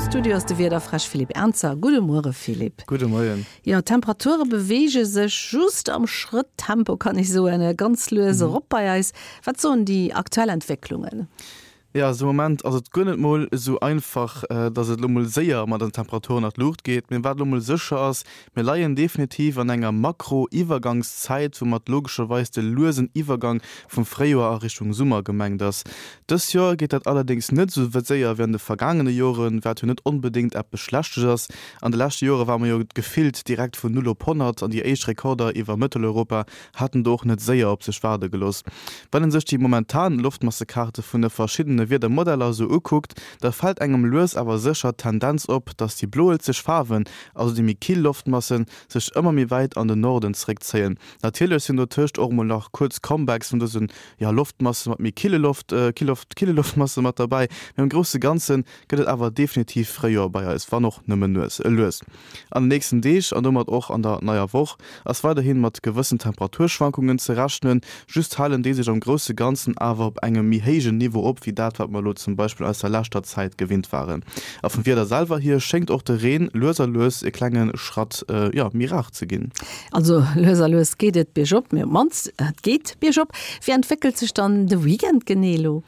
Studio ass de Wiederfräsch Philippe Ernzer. Gudde Muere Philippe. Gudde Moien. Jo, d'Temperature beweege sech just am Schrëtttempo, kann ech soen, ganz lues erop bei eis. Wat soen déi aktuell Entwécklungen? Jo, also de Moment ass et guer net mol esou einfach, dass et elo mol séier mat den Temperaturen an d'Luucht geet. Mee wat elo mol sécher ass, Mir leien definitiv an enger Makro-Iwwergangszäit, woumat logescherweis de luesen Iwwergang vum Fréijoer a Richtung Summer gemengt ass. Dës Joer geet dat allerdéngs net esou séier wéi an de vergaangene Joren, wat jo net onbedéngt eppes Schlechtes ass. An de leschte Jore ware mer jo gefillt direkt vun Null op 100 an déi éischt Rekorder iwwer Mëtteleuropa haten do och net séier op sech waarde gelooss. Wann een sech déi momentan Loftmassekaarte vun de verschiddene Wiedermodeller esou ukuckt, da fält engem lues awer sécher d'Tendenz op, dass déi bloelzeg Faarwen, also déi méi kill Loftmassen, sech ëmmer méi wäit an den Norden zeréckzéien. Natierlech sinn dotëscht och mol nach kuerz Comebacks vun dësen, jo, Loftmasse mat méi kille Loft, Killoft, kille Loftmasse mat derbäi, mee am grousse Ganze gëtt et awer definitiv Fréijoer bei eis, wann och nëmmen nues, lues. An den nächsten Deeg an domat och an der neier Woch ass weiderhi mat gewëssen Temperaturschwankungen ze rechnen, just halen déi sech am grousse Ganzen awer op engem méi héijen Niveau op, wéi dat wat mer elo zum Beispill aus der leschter Zäit gewinnt waren. A vum Wieder selwer hier schéngt och de Reen lues a lues e klenge Schratt, jo, méi rar ze ginn. Also lues a lues geet et biergop, mee op d'mannst et geet biergop. Wéi entwéckelt sech dann de Weekend genee elo?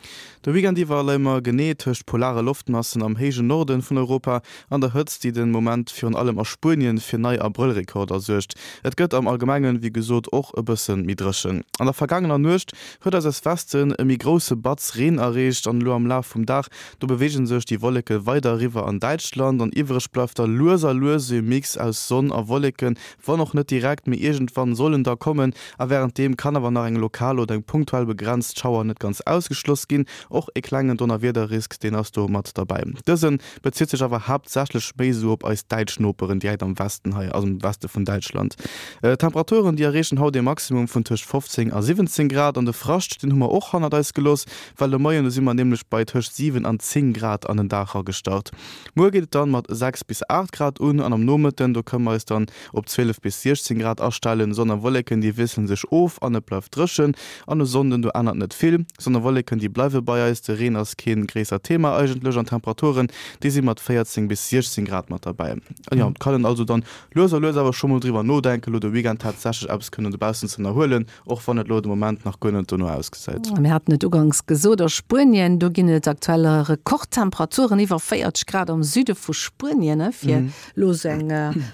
De Weekend iwwer leie mer genee tëscht polare Loftmassen am héijen Norden vun Europa an der Hëtzt, déi den Moment virun allem a Spuenien fir nei Abrëllrekorder suergt. Et gëtt am Allgemengen, wéi gesot, och e bësse méi dréchen. An der vergaangener Nuecht huet eis aus Westen e méi grousse Batz Reen erreecht an elo am Laf vum Dag, do beweege sech déi Wolleke weider eriwwer an Däitschland an iwwereg bleift da lues a lues e Mix aus Sonn a Wolleken, wann och net direkt, mee iergendwann soll en da kommen a wärenddeem kann awer nach eng lokal oder eng punktuell begrenzt Schauer net ganz ausgeschloss ginn. Och e klengen Donnerwiederrisk, deen ass do mat derbäi. Dëse bezitt sech awer haaptsächlech méi esou op eis däitsch Noperen direkt am Westen hei, also am Weste vun Däitschland. D'Temperaturen, déi erreechen haut ee Maximum vun tëscht 15 a 17 Grad an de Frascht, deen hu mer och hannert eis gelooss, well de Moien, do si mer nämlech bei tëscht 7 an 10 Grad an den Dag eragestart. Muer geet et dann mat 6 bis 8 Grad un an am Nomëtten, do kënne mer eis dann op 12 bis 16 Grad astellen. Sonn a Wolleken, déi wiessele sech of an et bleift dréchen. An e Sonnden, do ännert net vill. Sonn a Wolleken, déi bleiwe bei eis, de Reen ass kee gréissert Thema eigentlech an d'Temperaturen, déi si mat 14 bis 16 Grad mat derbäi. An jo, et kann een also dann lues a lues awer scho mol driwwer nodenken, elo de Weekend tatsächlech eppes kënnen dobaussen ze ënnerhuelen, och wann et elo de Moment nach guer net dono ausgesäit. Mir haten et uganks gesot, a Spuenien, do ginn et aktuell Rekordtemperaturen, iwwer 40 Grad am Süde vu Spuenien. Fir elo esou eng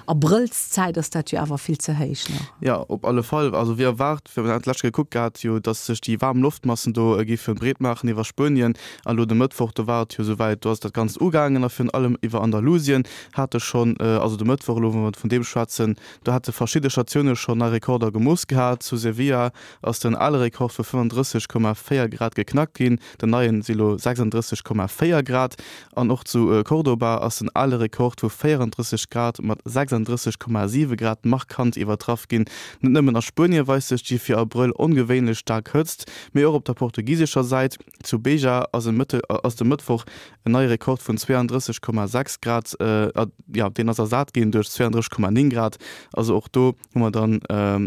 Abrëllszäit ass dat jo awer vill ze héich nach. Jo, op alle Fall. Also wéi erwaart, wir haten d'lescht Kéier gekuckt gehat jo, datt sech déi waarm Loftmassen do géife breet maachen iwwer Spuenien. An elo de Mëttwoch, do war et jo esouwäit, do ass dat Ganzt ugaangen a virun allem iwwer Andalusien hate schonn, also de Mëttwoch elo, wa mer vun deem schwätzen, Do hate verschidde Statioune schonn nei Rekorder gemooss gehat. Zu Sevilla ass den ale Rekord vu 35,4 Grad geknackt ginn, den neien si lo 36,4 Grad. An och zu Cordoba ass den ale Rekord vu 34 Grad mat 36,7 Grad markant iwwertraff ginn. Net nëmmen a Spuenie weist sech déi fir Abrëll ongewéinlech staark Hëtzt, mee och op der portugisescher Säit. Zu Beja ass de Mëttwoch En neie Rekord vun 32,6 Grad, jo, deen ass ersat ginn duerch 32,9 Grad. Also och do hu mer dann,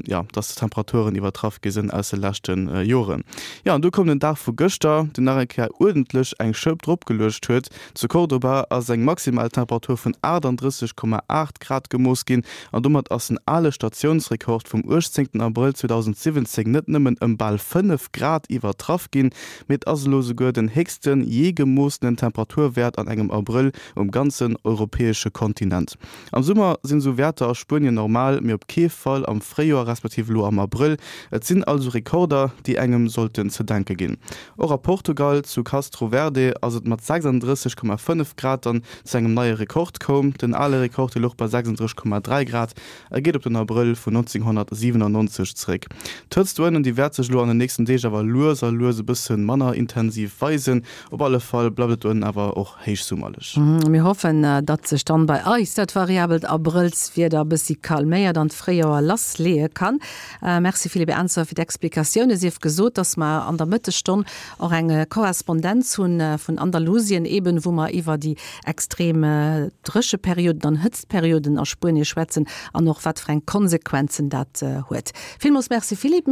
jo, dass d'Temperaturen iwwertraff gi sinn aus de leschte Joren. Jo, an du koum den Dag vu gëschter, deen nach eng Kéier uerdentlech eng Schëpp dropgeluecht huet. Zu Cordoba ass eng maximal Temperatur vun 38,8 Grad gemooss ginn an domat ass den ale Statiounsrekord vum 18 Abrëll 2017 net nëmmen ëm bal 5 Grad iwwertraff ginn, Mee et ass elo souguer den héchsten jee gemoossenen Temperaturwäert an engem Abrëll um ganzen europäesche Kontinent. Am Summer sinn esou Wäerter a Spuenien normal, mee op kee Fall am Fréijoer respektiv elo am Abrëll. Et sinn also Rekorder, déi engem sollten ze denke ginn. Och a Portugal, zu Castro Verde, ass et mat 36,5 Grad dann zu engem neie Rekord koum. Den ale Rekord, dee louch bei 36,3 Grad. E geet op den Abrëll vun 1997 zeréck. D'Hëtzt doënnen, déi wäert sech elo an den nächsten Deeg awer lues a lues e bësse manner intensiv weisen. Op alle Fall bleift et doënnen awer och héichsummerlech. Mir hoffen, datt sech dann bei eis dat variabelt Abrëllswieder e bëssi calméiert an d'Fréijoer lassleeë kann. Merci Philippe Ernzer fir d'Explikatioune. Sief gesot, datt mer an der Mëttesstonn och eng Korrespondenz hunn vun Andalusien eben, wou mer iwwer déi extrem Drécheperioden an Hëtztperioden a Spuenie schwätzen an och wat fir eng Konsequenzen dat huet. Villmools Merci Philippe.